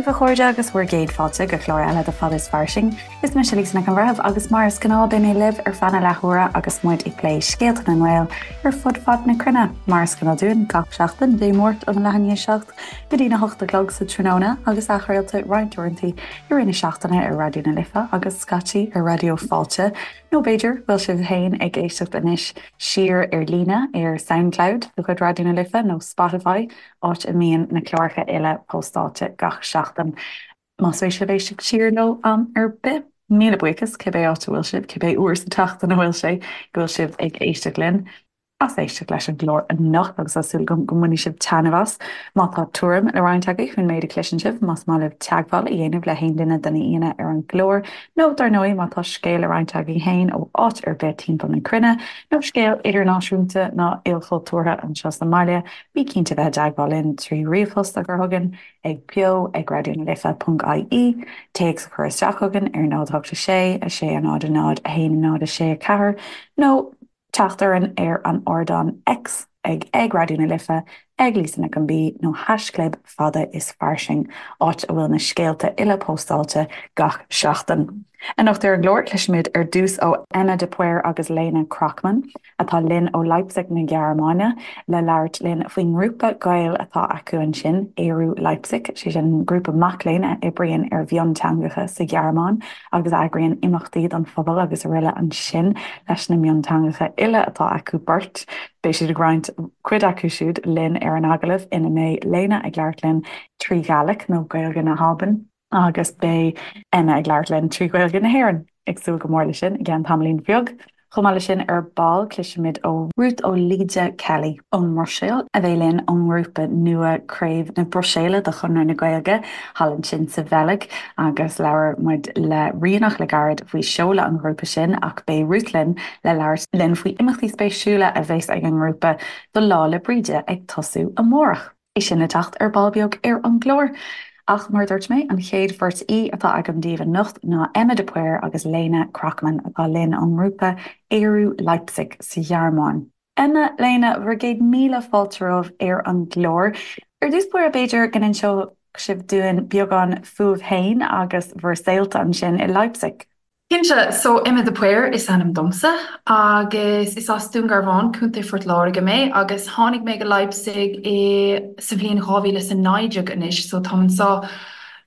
daoibh a chairde agus bhur gcéad fáilte go clár eile de Fad is Fairsing. Is mise Lisa Nic an Bhreithimh agus mar is gnáth beidh mé libh ar feadh na leathuaire agus muid ag plé scéalta na nGael ar fud fad na cruinne. Mar is gnáth dúinn gach seachtain, Dé Máirt óna leath i ndiaidh 7 go dtí na hocht a chlog sa tráthnóna agus athchraolta roinnt uaireanta i rith na seachtaine ar Raidió na Life agus scaití ar Raidió Fáilte. Nó b'fhéidir go bhfuil sibh féin ag éisteacht anois siar ar líne ar Soundcloud de chuid Raidió na Life nó Spotify, áit a mbíonn na cláracha uile póstáilte gach seachtain. Más spéis libh éisteacht siar leo am ar bith, míle buíochas, cibé áit a bhfuil sibh, cibé uair sa tseachtain a bhfuil sé go bhfuil sibh ag éisteacht linn. as éisteacht leis an gclár anocht agus tá súil agam go mbainfidh sibh taitneamh as. Má tá tuairim le roinnt agaibh faoin méid a chloiseann sibh, más maith libh teagmháil a dhéanamh le haon duine de na haíonna ar an gclár, nó dar ndóigh má tá scéal le roinnt agaibh féin ó áit ar bith timpeall na cruinne, nó scéal idirnáisiúnta ná ilchultúrtha anseo sa mbaile, bí cinnte bheith i dteagmháil linn trí ríomhphost a chur chugainn ag beo ag raidionalife ponc ie, téacs a chur isteach chugainn ar 0 8 6 6 0 0 1 0 6 4, nó teacht orainn ar an ardán X ag ag Raidió na Life, ag Lisa Nic an B nó haischlib Fada is Fairsing, áit a bhfuil na scéalta uile póstáilte gach seachtain. Anocht ar an gclár, cloisfimid ar dtús ó Emma de Paor agus Lena Krochmann, atá linn ó Leipzig na Gearmáine, le labhairt linn faoin ngrúpa Gael atá acu ansin, Ériu Leipzig, sé sin grúpa mac léinn a oibríonn ar mhionteangacha sa Ghearmáin. agus a eagraíonn imeachtaí don phobal agus araile ansin leis na mionteangacha uile atá acu beirt. Beidh siad ag roinnt cuid acu siúd linn ar an agallamh ina mbeidh Lena ag labhairt linn trí Ghàidhlig nó Gaeilge na hAlban agus beidh Emma ag labhairt linn trí Ghaeilge na hÉireann. Ag súil go mór leis sin i gceann tamaillín bheag. Chomh maith leis sin, ar ball, cloisfimid ó Ruth Ó Laoide Kelly ón mBruiséil, a bheidh linn ón ngrúpa nua Craobh na Bruiséile de Chonradh na Gaeilge thall ansin sa Bheilg agus labhair muid le Ríonach le gairid faoi seoladh an ghrúpa sin ach beidh Ruth linn le labhairt linn faoi imeachtaí spéisiúla a bheas ag an ngrúpa do Lá 'le Bríde ag tosú amárach. É sin le teacht ar ball beag ar an gclár. Ach mar a dúirt mé, an chéad bheirt aoi atá agam daoibh anocht ná Emma de Paor agus Lena Krochmann atá linn ón ngrúpa Ériu Leipzig sa Ghearmáin. Emma, Lena, bhur gcéad míle fáilte romhaibh ar an gclár. Ar dtús báire, b'fhéidir go n-inseodh sibh dúinn beagán fúibh féin agus bhur saolta ansin i Leipzig. Cinnte, so Emma de Paor is ainm domsa agus is as Dún Garbhán, Contae Phort Láirge mé agus tháinig mé go Leipzig i sa bhliain 2019 anois so táim anseo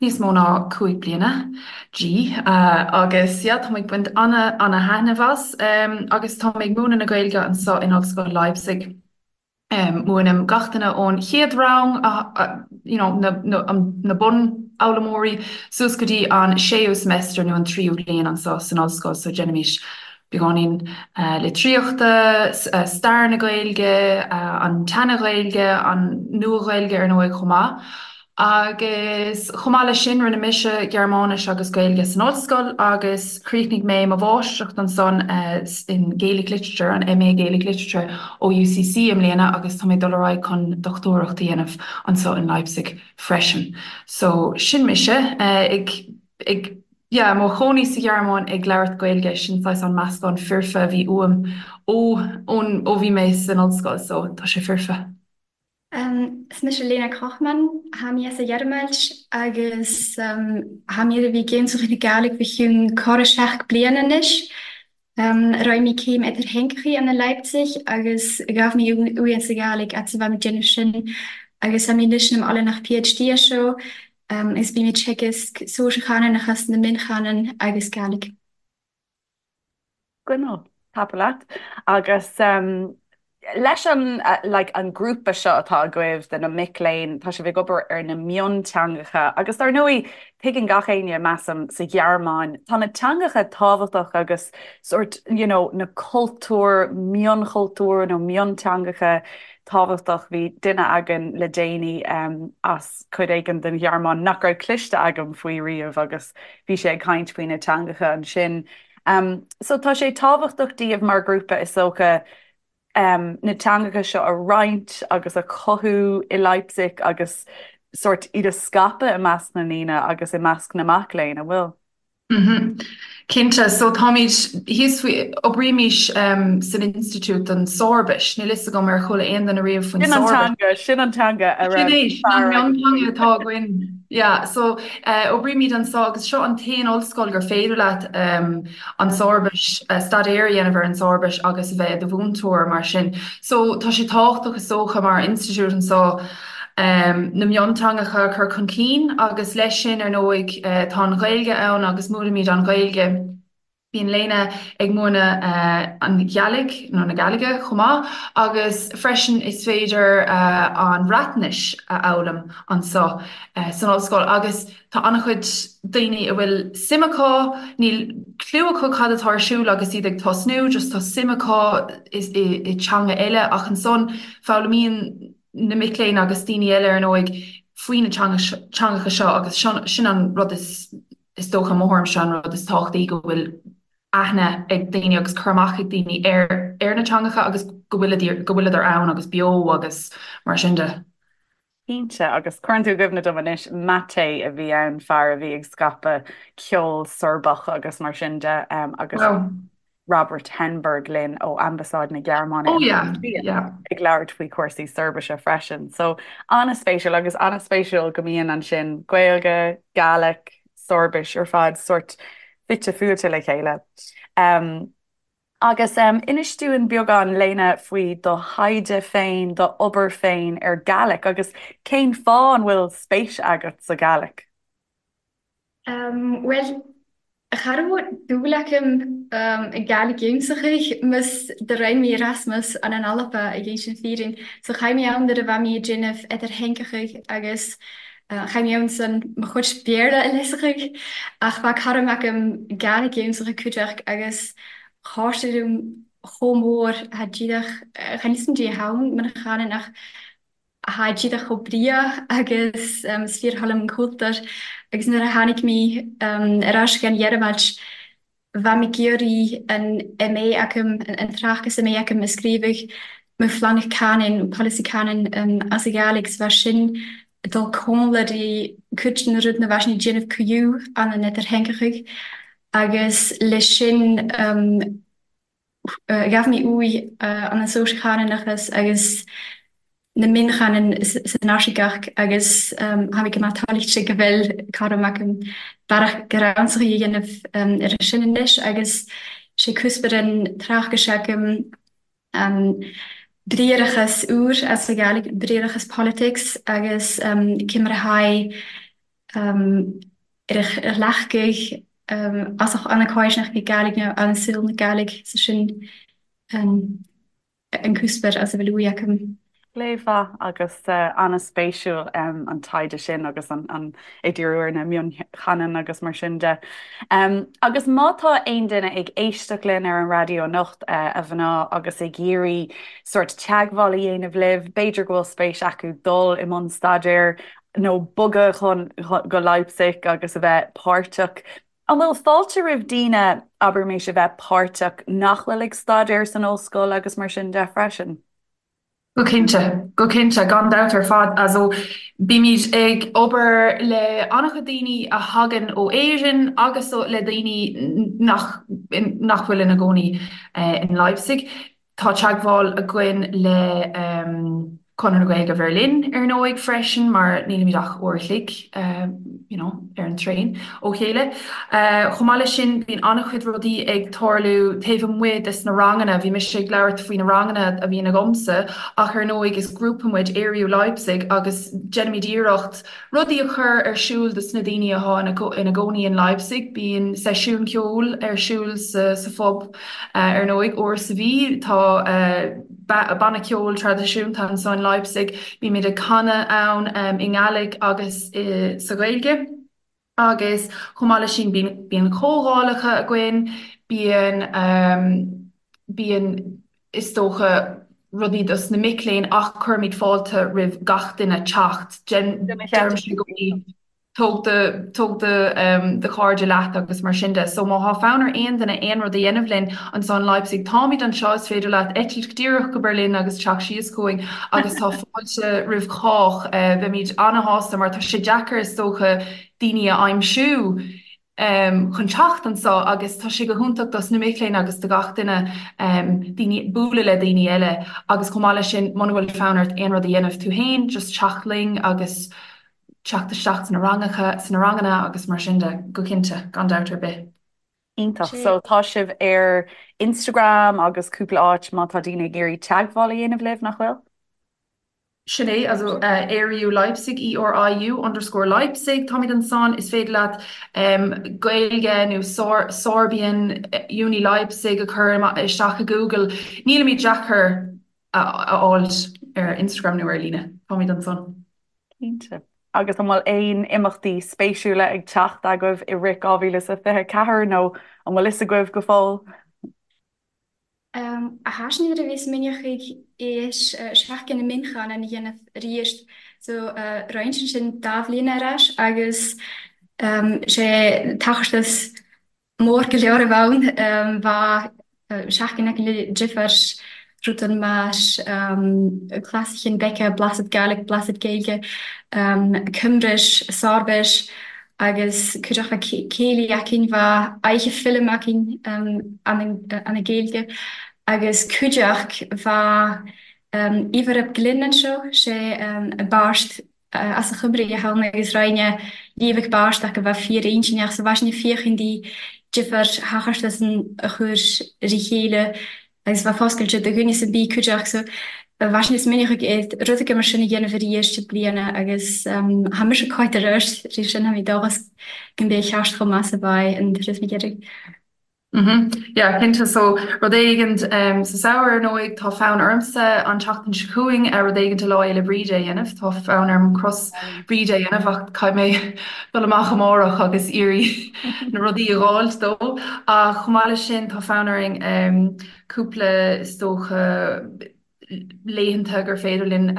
níos mó ná 5 bliana, gee, agus yeah táim ag baint ana ana thaitneamh as agus táim ag múineadh na Gaeilge anseo in Ollscoil Leipzig. Múinim gach duine ón chéad rang, you know, na, na, na bunfhoghlaimeoirí suas go dtí an séú semester nó an tríú bliain anseo san ollscoil so déanaimid beagáinín litríochta, stair na Gaeilge, an tSeana-Ghaeilge, an Nua-Ghaeilge ar ndóigh chomh maith. Agus chomh maith leis sin, rinne mise Gearmáinis agus Gaeilge san ollscoil agus chríochnaigh mé mo mháistreacht ansan in Gaelic Literature, an MA Gaelic Literature ó UCC i mbliana agus tá mé ag dul ar aghaidh chun dochtúireacht a dhéanamh anseo in Leipzig freisin. So, sin mise ag, ag, yeah, mo chónaí sa Ghearmáin ag labhairt Gaeilge, sin saghas an meascán foirfe a bhí uaim ó, ón, ó bhí mé san ollscoil, so tá sé foirfe. Is mise Lena Krochmann, Tha mi as a Ghearmailt agus tha mi a bhith ag cainnt Gàidhlig fà chionn corr seachd bliadhan a-nis. Raibh mi céim eadar-theangachaidh ann i Leipzig agus ghabh mi uaidh anns a Ghàidhlig fhad 's a bha mi déanamh sin agus tha mi a-nis nam ollanach PhD air seo agus bhim ag teagasc sòisear-chànanachas na mion-chànan agus Gàidhlig. Gineal, tapa leat. Agus leis an like an grúpa seo atá agaibh de na mic léinn, tá sibh ag obair ar na mionteangacha agus dar ndóigh tuigeann gach éinne, measaim, sa Ghearmáin, tá na teangacha tábhachtach agus sórt you know na cultúir, mionchultúir nó mionteangacha tábhachtach. Bhí duine againn le déanaí as cuid éigin den Ghearmáin nach raibh cloiste agam faoi riamh agus bhí sé ag caint faoi na teangacha ansin. So tá sé tábhachtach daoibh mar ghrúpa is dócha na teangacha seo a roinnt agus a chothú i Leipzig agus sórt iad a scaipeadh i measc na ndaoine agus i measc na mac léinn, an bhfuil? Cinnte. So táimid thíos faoi, oibrímid san Institiúid don Soirbis. Níl fhios agam ar chuala aon duine riamh faoin Sin an teanga, sin an teanga a raibh Sin é, sin an mionteanga atá againn. Yeah, so oibrímid anseo agus seo an t-aon ollscoil gur féidir leat an tSoirbis, staidéar a dhéanamh ar an tSoirbis agus a bheith i do mhúinteoir mar sin. So tá sé tábhachtach is dócha mar institiúid anseo na mionteangacha a chur chun cinn agus leis sin ar ndóigh tá an Ghaeilge ann agus múinimid an Ghaeilge. Bíonn Lena ag múineadh an Ghàidhlig, nó na Gàidhlige, chomh maith, agus freisin is féidir an Bhreatnais a fhoghlaim anseo san ollscoil. Agus tá an-chuid daoine a bhfuil suim acu, níl cliú acu cad atá ar siúl agus iad ag tosnú, just tá suim acu i teanga eile ach ansan foghlaimíonn na mic léinn agus daoine eile ar ndóigh faoi na teangacha seo agus sin an rud is Is dócha, mo thuairimse, an rud is tábhachtaí go bhfuil aithne ag daoine agus cur amach ag daoine ar ar na teangacha agus go bhfuil go bhfuileadar ann agus beo agus mar sin de. Cinnte, agus cuireann tú i gcuimhne dom anois, Mate a bhí ann, fear a bhí ag scaipeadh ceol Sorbach agus mar sin de agus Robert Henberg linn ó Ambasáid na Gearmáine oh, yeah, yeah. ag labhairt faoi chúrsaí Soirbise freisin. So an-spéisiúil agus an-spéisiúil go mbíonn ansin Gaeilge, Gàidhlig, Soirbis ar fad sórt fite fuaite le chéile. Um, agus um, inis dúinn beagán Lena faoi do thaighde féin, do obair féin ar Gàidhlig agus cén fáth an bhfuil spéis agat sa Ghàidhlig? Bhuel, cha robh dùil agam i Gàidhlig ionnsachaidh, mas do rinn mi Erasmus ann an Alba ag innsinn fìrinn. So chaidh mi ann nuair a bha mi a' dèanamh Eadar-Theangachaidh agus chaidh mi ann san mo chuid Bèarla a leigheasachaidh. Ach bha caram agam Gàidhlig ionnsachaidh cuideachd agus chàir sé lium chomh mòr tha díreach, chan fhios a'm dè a tha ann man a chanann ach Tha díreach chomh breagh agus is fíor-thoil liom an cultúr agus nuair a tháinig mé ar ais go an Ghearmáin bha mé ag iarraidh an MA agam, an tráchtas MA agam a scríobhadh mo phlean canúin, polasaí canúin as an Ghàidhlig so bha sin ag dul comhairle di cuid de na rudaí a bha sin ag déanamh cuiú ann an Eadar-Theangachaidh agus leis sin Ghabh mé uaidh an an sóisear-chanúnachas agus na mionchanainn san Fhairsingeacht agus tha mi gu math tàilchte gu bheil caram agam bearadh gu-rannsachaidh a dhéanamh air sin anois agus sé cuspair an tráchtais agam briathrachas úr as an Ghàidhlig, briathrachas politics agus cé mar a tha ar a ghlacadh as an Cáisneach na Gàidhlig nó an saol na Gàidhlig so sin an cuspair as a bhfuil uaidh agam. Plé mhaith agus an-spéisiúil an taighde sin agus an ag díriú ar na mionchanainn agus mar sin de. Agus má tá aon duine ag éisteacht linn ar an raidió anocht, a mhná, agus ag iarraidh sórt teagmháil a dhéanamh libh, b'fhéidir go bhfuil spéis acu dul i mbun staidéir, nó bogadh chun go Leipzig agus a bheith páirteach. An bhfuil fáilte roimh daoine, abraimis, a bheith páirteach nach bhfuil ag staidéar san ollscoil agus mar sin de freisin? Go cinnte, go cinnte, gan dabht ar fad. Also, bímid ag obair le an-chuid daoine a thagann ó Éirinn agus le daoine nach nach bhfuil ina gcónaí in Leipzig. Tá teagmháil againn le Conradh na Gaeilge Bheirlín, ar ndóigh, freisin, mar nílimid ach uair a chloig, you know, ar an traein ó chéile. Chomh maith leis sin, bíonn an-chuid rudaí ag tarlú taobh amuigh des na ranganna. Bhí mise ag labhairt faoi na ranganna a bhíonn agamsa, ach ar ndóigh is grúpa muid, Ériu Leipzig, agus déanaimid iarracht Rudaí a chur ar siúl dos na daoine athá ina gcónaí in Leipzig. Bíonn seisiún ceoil ar siúl sa phub ar ndóigh, uair sa mhí. Tá banna ceoil traidisiúnta anso in Leipzig. Bímid ag canadh ann i nGàidhlig agus sa Ghaeilge. Agus chomh maith leis sin bíonn comhdhálacha againn, bíonn bíonn is dócha rudaí dos na mic léinn ach cuirimid fáilte roimh gach duine teacht. Deirimse i gcónaí tóg do tóg do do chairde leat agus mar sin de. So má thá fonn ar aon duine aon rud a dhéanamh linn anso in Leipzig, táimid anseo, is féidir leat eitilt díreach go Berlin agus teacht síos chugainn agus tá fáilte roimh chách. Beimid ana-shásta mar tá sé deacair is dócha daoine a aimsiú chun teacht anso agus tá sé go hiontach dos na mic léinn agus do gach duine daoine bualadh le daoine eile agus chomh maith leis sin muna bhfuil fonn ort aon rud a dhéanamh tú féin just teacht linn agus. teacht isteach sna rangacha, sna ranganna agus mar sin de, go cinnte, gan dabht ar bith. Iontach. So tá sibh ar Instagram agus cúpla áit má tá daoine ag iarraidh teagmháil a dhéanamh libh, nach bhfuil? Sin é, also Eriu Leipzig, E-R-I-U underscore Leipzig, táimid ansan, is féidir leat Gaeilge nó Sorbian Uni Leipzig a chur isteach i Google. Nílimid deacair a fháilt ar Instagram nó ar líne, táimid ansan. Cinnte. Agus an bhfuil aon imeachtaí spéisiúla ag teacht agaibh i rith 2024 nó an bhfuil fhios agaibh go fóill? Tha sinn a bhith smaoineachadh air Seachtain na Mionchanan a dhéanamh arís so roinnt ansin dá bhliain ar ais agus sé tachairt mór go leor a bheadh ann bheadh seachtain acu le difear rudan mar Clasaichean Beca, Blasad Gaelic, Blasad Gaeilge, Cymris, Sorbis agus cuideachta céilí againn, bheadh oidhche film againn an Ghaeilge agus cuideachta bheadh Ifor ap Glyn anseo, sé beirt as a Chymru a thann agus roinne Liamhac beirt acu bheadh fíor-intinneach so bheadh sin ag féachaint di difear thachairt san a chur ri chéile agus bheadh foscailte do dhuine san bith cuideachta so bheadh sin is minic ag rud aige mar sin a dhéanamh arís i bliana agus tha mise cáite ar ais ri sin tha mi dóchas go mbeidh cheart chomh maith 's a bheidh an turas na gCeithre. Mhm. Yeah, cinnte. So, rud éigint sa samhradh, ar ndóigh, tá fonn ormsa an tseachtain seo chugainn rud éigint do Lá Fhéile Bríde a dhéanamh. Tá fonn orm cros Bríde a dhéanamh ach caithfidh mé dul amach amárach agus iarraidh na rudaí a dh'fháilt dó. Ach chomh maith leis sin, tá fonn orainn cúpla, is dócha, laethanta gur féidir linn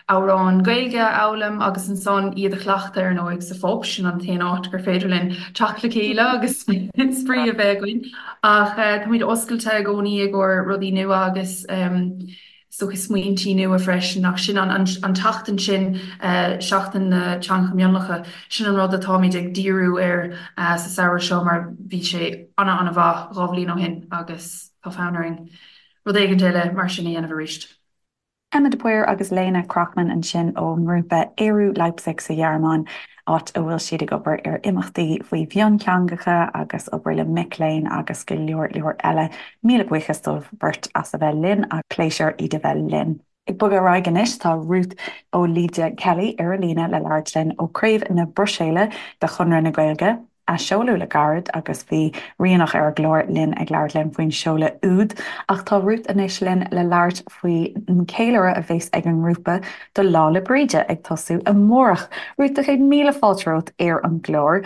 amhráin Gaeilge a fhoghlaim agus ansan iad a chleachtadh ar ndóigh sa phub, sin an t-aon áit gur féidir linn teacht le chéile agus spraoi a bheith againn. Ach táimid oscailte i gcónaí i gcomhair rudaí nua agus is dócha smaointí nua freisin ach sin an tseachtain sin, Seachtain na Teangacha Mionlacha, sin an rud atáimid ag díriú air sa samhradh seo mar bhí sé ana-ana-mhaith 2 bhliain ó shin agus tá fonn orainn rud éigin eile mar sin a dhéanamh arís. Emma de Paor agus Léna Krochman ansin ón ngrúpa Eriu Leipzig sa Ghearmáin, áit a bhfuil siad ag obair ar imeachtaí faoi mhionteangacha agus obair le mic léinn agus go leor leor eile. Míle buíochas dóibh beirt as a bheith linn agus pléisiúr iad a bheith linn. Ag bogadh ar aghaidh anois, tá Ruth Ó Laoide Kelly ar an líne le labhairt linn ó Craobh na Bruiséile de Chonradh na Gaeilge, a seoladh le gairid agus bhí Ríonach ar an gclár linn ag labhairt linn faoin seoladh úd. Ach tá Ruth anois linn le labhairt faoin gceiliúradh a bheas ag an ngrúpa do Lá 'le Bríde ag tosú amárach. Ruth, tá 100,000 fáilte romhat ar an gclár.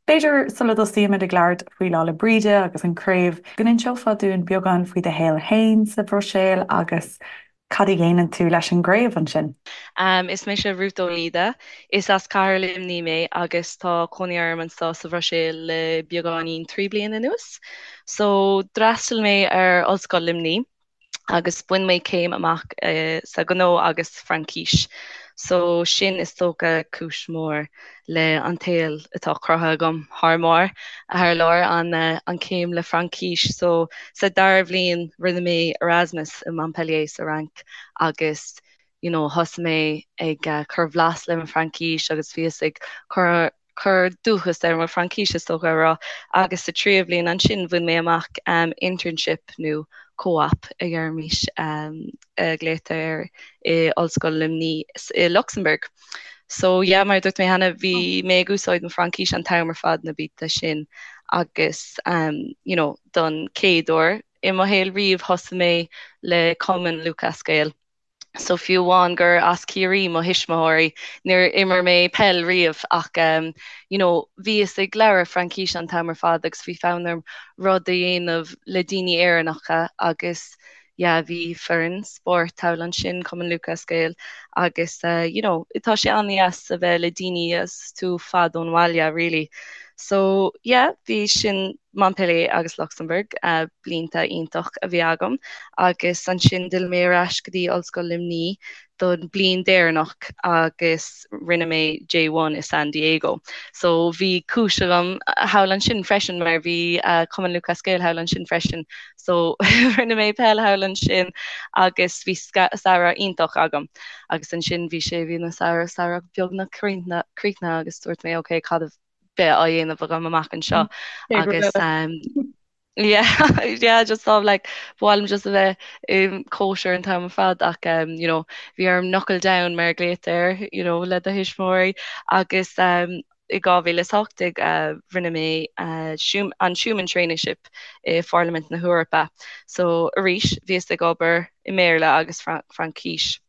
B'fhéidir sula dtosaímid ag labhairt faoi Lá 'le Bríde agus an craobh, go n-inseofá dúinn beagán faoi do shaol féin sa Bhruiséil agus cad a dhéanann tú leis an gcraobh ansin? Is mise Ruth Ó Laoide. Is as Cathair Luimnigh mé agus tá cónaí orm anseo sa Bhruiséil le beagáinín 3 bliana anuas. So, d'fhreastail mé ar Ollscoil Luimnigh. agus bhain mé céim amach sa ghnó agus Fraincis. So sin is dócha cúis mhór le an tsaol atá cruthaithe agam thar mbarr, thar lear, an an céim le Fraincis. So sa dara bhliain rinne mé Erasmus i Montpellier sa Fhrainc agus you know thosaigh mé ag cur bhlas le mo Fraincis agus bhíos ag cur cur dúchas ar mo Fraincis is dócha a rá agus sa tríú bhliain ansin bhain mé amach internship nó co-op a dheirimis a ghlaotar air i Ollscoil Luimnigh i Lucsamburg. So yeah mar a dúirt mé cheana bhí mé ag úsáid mo Fraincis an t-am ar fad na blianta sin agus you know don chéad uair i mo shaol riamh thosaigh mé le Cumann Lúthchleas Gael. So fiú amháin gur as Ciarraí mo thuismitheoirí, níor imir mé peil riamh ach you know bhíos ag labhairt Fraincise an t-am ar fad agus bhí fonn orm rud a dhéanamh le daoine Éireannacha agus yeah bhí foireann spóirt thall ansin, Cumann Lúthchleas Gael agus you know tá sé an-deas a bheith le daoine agus tú fad ón bhaile really. So yeah, bhí sin Montpellier agus Lucsamburg, blianta iontach a bhí agam agus ansin d'fhill mé ar ais go dtí Ollscoil Luimní don bliain deireanach agus rinne mé J1 i San Diego. So bhí cúis agam thall ansin freisin mar bhí Cumann Lúthchleas Gael thall ansin freisin. So rinne mé peil thall ansin agus bhí samhradh iontach agam. Agus ansin bhí sé, bhí na samhradh, samhradh beagnach críochnaithe agus dúirt mé ok cad a bheidh á dhéanamh agam amach anseo agus yeah yeah just sort of like ba mhaith liom just a bheith i cóisir an t-am ar fad ach um, you know bhí orm knuckle down mar a ghlaotar you know le do thuismitheoirí agus um, i 2018 uh, rinne mé uh, an Schuman Traineeship i Pharlaimint na hEorpa. So arís bhíos ag obair i mBéarla agus Fraincis.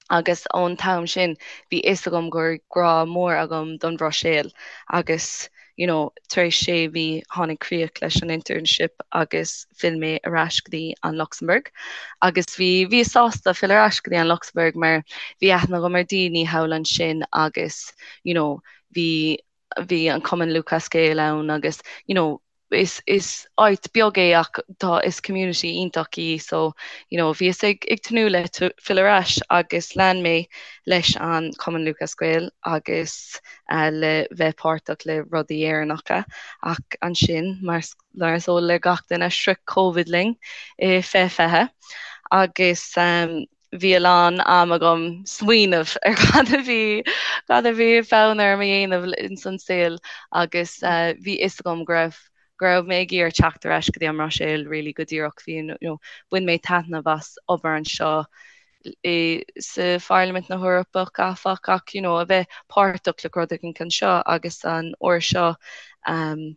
Agus ón t-am sin bhí fhios agam go raibh grá mór agam don Bhruiséil agus you know tar éis sé mhí tháinig críoch leis an internship agus phill mé ar ais go dtí an Lucsamburg agus bhí bhíos sásta fill ar ais go dtí an Lucsamburg mar bhí aithne agam ar daoine thall ansin agus you know bhí bhí an Cumann Lúthchleas Gael ann agus you know is is áit beag é ach tá is community iontach í so you know bhíos ag ag tnúth le fill ar ais agus lean mé leis an Cumann Lúthchleas Gael agus uh, le bheith páirteach le rudaí Éireannacha ach ansin mar mar is eol le gach duine shroich Covid linn i 2020 agus um, bhí a lán am agam smaoineamh ar cad a bhí cad a bhí fonn orm a dhéanamh ins an saol agus bhí fhios agam go raibh go raibh mé ag iarraidh teacht ar ais go dtí an mBruiséil really go díreach bhí you know bhain mé taitneamh as obair anseo i sa Pharlaimint na hEorpach áfach ach you know a bheith páirteach le rud éigin anseo agus an uair seo um,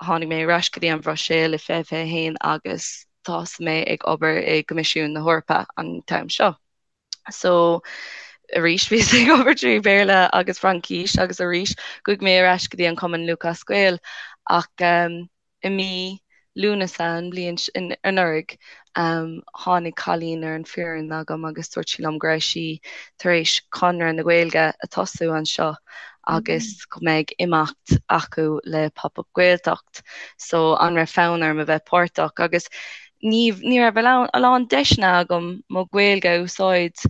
Tháinig mé ar ais go dtí an Bhruiséil i 2021 agus thosaigh mé ag obair i gCoimisiún na hEorpa an t-am seo. So arís bhíos ag obair trí Bhéarla agus Fraincis agus arís chuaigh mé ar ais go dtí an Cumann Lúthchleas Gael ach i mí Lúnasa an bhliain anuraidh tháinig cailín ar an foireann agam agus dúirt sí liom go raibh sí tar éis Conradh na Gaeilge a tosú anseo agus go mbeidh imeacht acu le Pop Up Gaeltacht so an raibh fonn orm a bheith páirteach agus ní ní raibh a lán deiseanna agam mo Ghaeilge a úsáid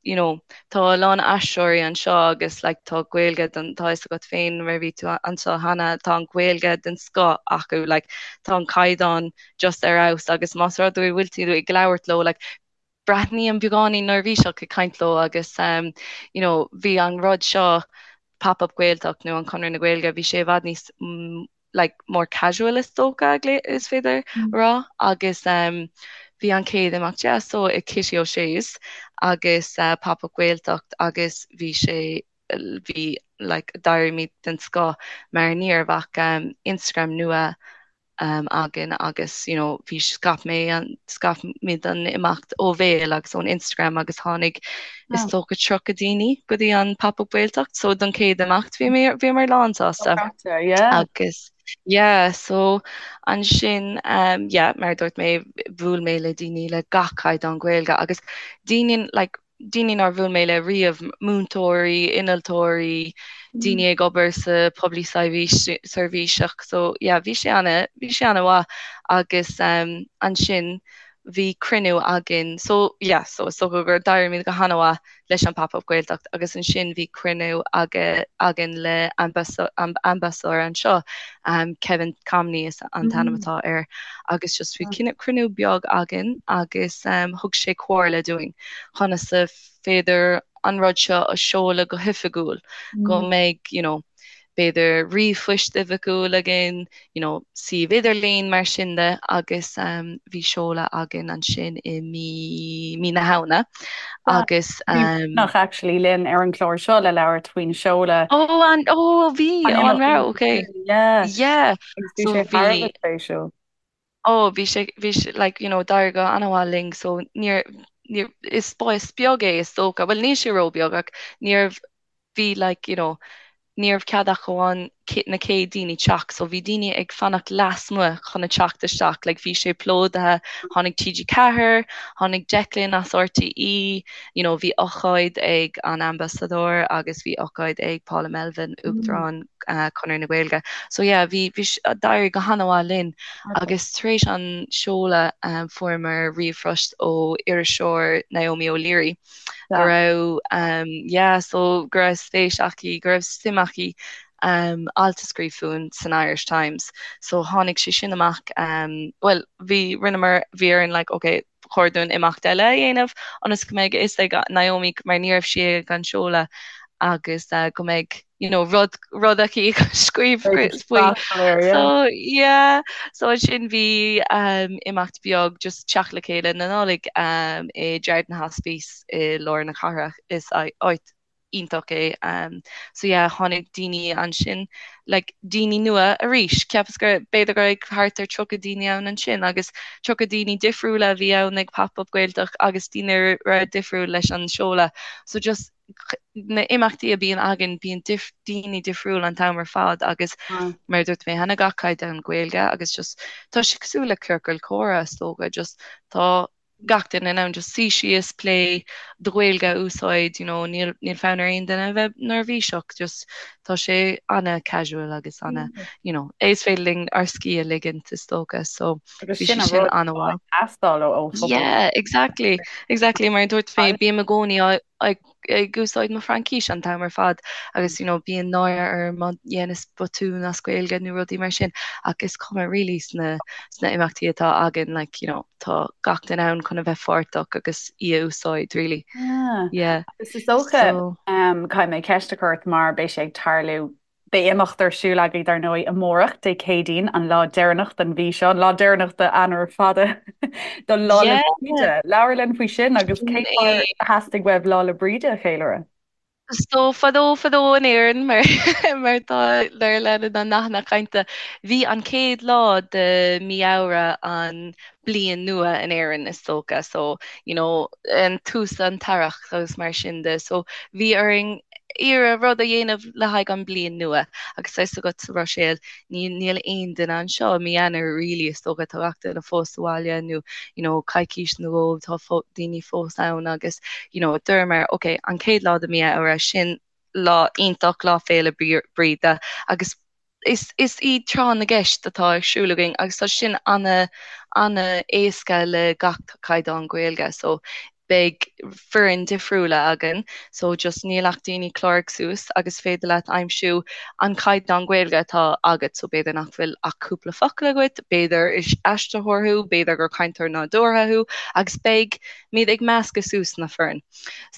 you know tá a lán aisteoirí anseo agus like tá Gaeilge den tá fhios agat féin mar bhí tú anseo cheana tá an Ghaeilge den scoth acu like tá an caighdeán just ar fheabhas agus más rud é go bhfuil tú ag labhairt leo like breathnaím beagáinín neirbhíseach ag caint leo agus um you know bhí an rud seo Pop Up Gaeltacht nó an Conradh na Gaeilge bhí sé i bhfad níos like more casual is dócha is féidir a rá agus um bhí an chéad imeacht yeah so i Kitty O'Shea's agus uh, Pop Up Gaeltacht agus bhí sé bhí like d'éirímid den scoth mar ní raibh ach um, Instagram nua um, againn agus you know, bhí scaip mé an scaip muid an imeacht ó bhéal agus ón Instagram agus tháinig is dócha 30 daoine go dtí an Pop Up Gaeltacht so don chéad imeacht bhí mé bhíomar lán sásta. Yeah. Agus yeah, so ansin um, yeah, mar a dúirt mé bhuail mé le daoine le gach caighdeán Gaeilge agus daoine like, daoine nár bhuail mé le riamh, múinteoirí, innealtóirí, daoine ag obair sa poiblí seirbhíseach so yeah bhí sé ana bhí sé ana mhaith agus um, ansin bhí cruinniú againn so yeah so is dócha gur d'éirímid go hana mhaith leis an Pop Up Gaeltacht agus ansin bhí cruinniú againn le ambasadóir anseo um, Kevin Comney is an t-ainm atá air agus just bhí cruinniú beag againn agus um, thug sé comhairle dúinn conas is féidir an rud seo a seoladh go hoifigiúil, go mbeidh you know b'fhéidir ríomhphoist oifigiúil againn, you know suíomh idirlín mar sin de agus um, bhí seoladh againn ansin i mí mí na Shamhna agus um, Nach actually linn ar an chlár seo le labhairt faoin seoladh. Ó an ó bhí ó an raibh okay. Yeah. Yeah. Agus bhí sé thar a bheith spéisiúil. Ó bhí sé bhí sé like you know d'éirigh go an-mhaith linn so níor níor is spás beag é is dócha, bhuel níl sé róbheag ach níorbh bhí like you know ní raibh cead ach amháin. na chéad daoine teacht so bhí daoine ag fanacht lasmuigh chun a teacht isteach like bhí sé plódaithe, tháinig TG4, tháinig Declan as RTÉ, you know bhí ócáid ag an ambasadóir agus bhí ócáid ag Paula Melvin, Uachtarán Chonradh na Gaeilge. So yeah bhí bhí d'éirigh go han-mhaith linn agus tar éis an seoladh fuaireamar ríomhphost ó iriseoir Naomi O'Leary go raibh yeah so go raibh spéis aici, go raibh suim aici alt a scríobh fúinn san Irish Times. So tháinig sé sin amach bhuel bhí rinneamar bhí orainn like ok ba chóir dúinn imeacht eile a dhéanamh ionas go mbeidh a fhios ag Naomi mar ní raibh sí ag an seoladh agus go mbeidh you know rud rud aici a scríobh faoi. So yeah so ansin bhí imeacht beag just teacht le chéile na Nollag i Jarden Hospice i lár na cathrach is áit iontach é. So yeah tháinig daoine ansin like daoine nua arís. Cheapas go b'fhéidir go raibh thart ar 30 daoine ann ansin agus 30 daoine difriúla a bhí ann ag Pop Up Gaeltacht agus daoine a raibh difriúil leis an seoladh. So just na imeachtaí a bíonn againn bíonn daoine difriúil an t-am ar fad agus mar a dúirt mé cheana gach caighdeán Gaeilge agus just tá sé cosúil le ciorcal comhrá is dócha just tá gach duine in ann just suí síos, plé, do Ghaeilge a úsáid, you know, níl, níl fonn ar aon duine a bheith neirbhíseach, just tá sé ana-casual agus ana, you know, is féidir linn ár scíth a ligint is dócha, so bhí sé sin ana-mhaith. Teastáil ó phobal. Yeah, exactly, exactly, mar a dúirt mé, bím i gcónaí ag ag úsáid mo Fraincis an t-am ar fad agus you know bíonn náire orm má dhéanas botún as Gaeilge nó rudaí mar sin ach is cuma really sna sna imeachtaí atá againn like you know tá gach duine ann chun a bheith pháirteach agus í a úsáid really. Yeah. Yeah. Agus is dócha So um, caithfidh mé ceist a chur ort mar beidh sé ag tarlú Beidh imeacht ar siúl agaibh, dar ndóigh, amárach, Dé Céadaoin, an lá deireanach den mhí seo, an lá deireanach d'Eanáir fada do Lá 'le Bríde. Labhair linn faoi sin agus cén fáth ar theastaigh uaibh Lá 'le Bríde a cheiliúradh? So fadó fadó in Éirinn, mar mar tá mar leanann na nathanna cainte, bhí an chéad lá de mí Fheabhra an bliain nua in Éirinn is dócha so you know an tús an t-earrach agus mar sin de so bhí orainn iarraidh rud a dhéanamh le haghaidh an bliain nua agus tá fhios agat sa Bhruiséil ní níl aon duine anseo i mí Eanáir really is dócha tá gach duine fós sa bhaile nó you know coicís nó dhó tá daoine fós ann agus you know dúramar ok an chéad lá de mí Fheabhra sin lá iontach lá féile Bríde agus Is is í tráth na gceist atá ar siúl againn agus tá sin ana ana éasca le gach caighdeán Gaeilge so beidh foireann difriúla againn so just níl ach daoine cláraigh suas agus féidir leat aimsiú an caighdeán Gaeilge atá agat so b'fhéidir nach bhfuil ach cúpla focal agat, b'fhéidir is aistritheoir thú, b'fhéidir gur cainteoir nádúrtha thú agus beidh muid ag meascadh suas na foireann.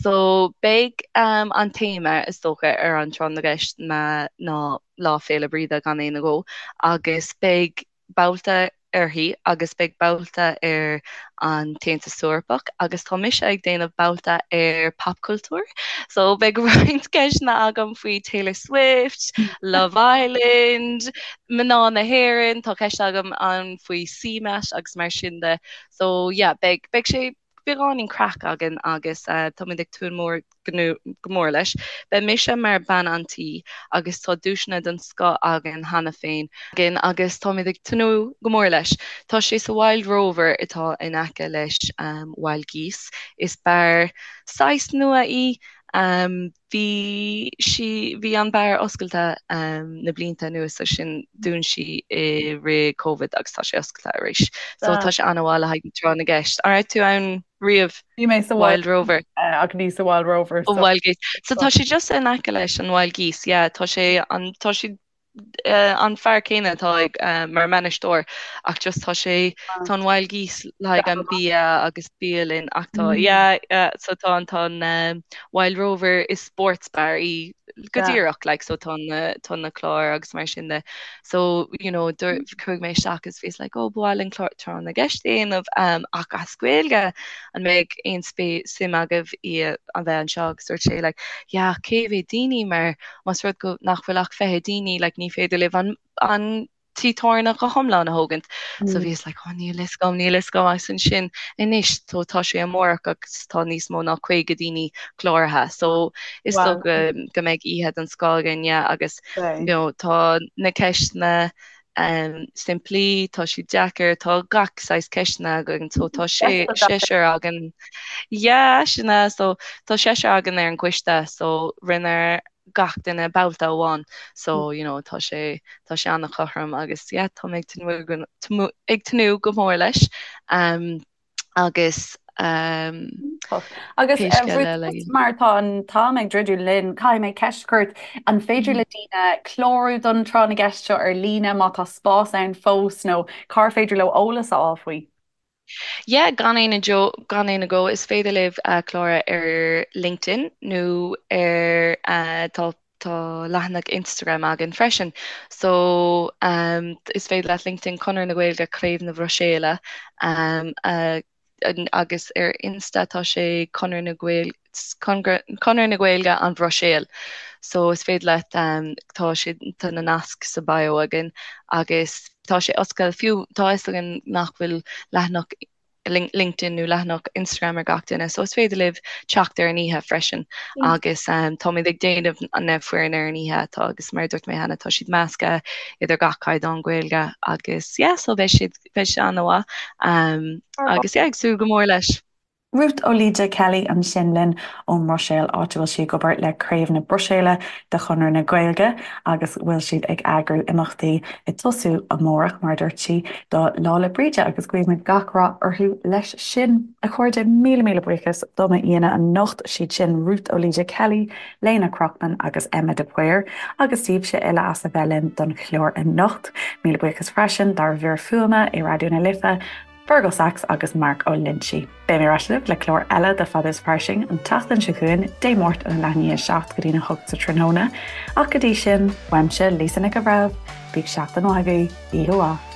So beidh an téama is dócha ar an tráth na gceist ná Lá Féile Bríde gan aon agó agus beidh babhta uirthi agus beidh babhta ar an tAontas Eorpach agus tá mise ag déanamh babhta ar popchultúr. So beidh roinnt ceisteanna agam faoi Taylor Swift, Love Island, mná na hÉireann, tá ceist agam ann faoi CMAT agus mar sin de. So yeah, beidh beidh sé beagáinín craic againn agus táimid ag tnúth mór go mór leis. Beidh mise mar bean an tí agus tá duaiseanna den scoth againn cheana féin againn agus táimid ag tnúth go mór leis. Tá sé sa Wild Rover atá in aice leis Wild Geese. Is beár saghas nua í. Bhí sí, bhí an beár oscailte na blianta anuas ansin dún sí i rith Covid agus tá sé oscailte arís. So tá sé an-mhaith le haghaidh tráth na gceist. An raibh tú ann riamh? Bhí mé sa Wild Rover. Ach ní sa Wild Rover. So. Wild Geese. So tá sé just in aice leis an Wild Geese, yeah. Tá sé an, tá sé an fear céanna atá ag mar bhainisteoir ach just tá sé tá an Wild Geese le haghaidh an bia agus bialann ach tá yeah yeah so tá an tá an Wild Rover is sports bar í go díreach like so tá na tá na cláir agus mar sin de so you know chuaigh mé isteach agus bhíos like oh ba mhaith linn clár tráth na gceist a dhéanamh um, ach as Gaeilge an mbeidh aon suim agaibh i a bheith anseo agus dúirt sé like yeah cé mhéad daoine mar Más rud go nach bhfuil ach 20 daoine, like, ní féidir libh an, an tigh tábhairne go hiomlán a thógaint. So bhíos like oh níl fhios agam, níl fhios agam agus ansin anois so tá sé amárach agus tá níos mó ná 50 daoine cláraithe. So is dócha go mbeidh oíche den scoth againn yeah agus you know tá na ceisteanna um, simplí, tá siad deacair, tá gach saghas ceisteanna againn, so tá sé seisear againn. Yeah, sin é, so tá seisear againn ar an gcoiste, so rinne gach duine babhta amháin, so you know tá sé tá sé an-chothrom agus yeah tá mé ag tnúth ag tnúth go mór leis. Um, agus um, Agus pé scéal eile. Mar tá an t-am ag druidim linn, caithfidh mé ceist a chur ort, an féidir le daoine clárú don tráth na gceist seo ar líne má tá spás ann fós nó cár féidir leo eolas a fháil faoi? Yeah, gan aon gan aon agó, is féidir libh clárú ar LinkedIn nó ar tá tá leathanach Instagram againn freisin. So is féidir leat LinkedIn Conradh na Gaeilge Craobh na Bruiséile agus ar Insta tá sé Conradh na Gaeilge Conradh na Gaeilge an Bhruiséil. So is féidir leat tá sé tá na naisc sa bio againn agus tá sé oscailte fiú tá fhios againn nach bhfuil leathanach LinkedIn nó leathanach Instagram ar gach duine so is féidir libh teacht ar an oíche freisin agus táimid ag déanamh na foireann ar an oíche atá agus mar a dúirt mé cheana tá siad measctha idir gach caighdeán Gaeilge agus yeah so beidh siad beidh sé an-mhaith agus yeah ag súil go mór leis. Ruth Ó Laoide Kelly ansin linn ón mBruiséil, áit a bhfuil sí ag obair le Craobh na Bruiséile de Chonradh na Gaeilge agus bhfuil siad ag eagrú imeachtaí ag tosú amárach, mar a dúirt sí, do Lá 'le Bríde agus guímid gach rath orthu leis sin. A chairde, míle míle buíochas do m'aíonna anocht, siad sin Ruth Ó Laoide Kelly, Léna Krochman agus Emma de Paor, agus daoibhse uile as a bheith linn don chlár anocht. Míle buíochas freisin dár bhfir fuaime i Raidió na Life, Fergal Sachs agus Mark Ó Loinsigh. Beidh mé ar ais libh le clár eile de Fada is Fairsing an tseachtain seo chugainn, Dé Máirt óna leath i ndiaidh 7 go dtína 8 sa tráthnóna. Ach go dtí sin, uaimse, Lisa Nic an Bhreithimh, bíodh seachtain mhaith agaibh, oíche mhaith.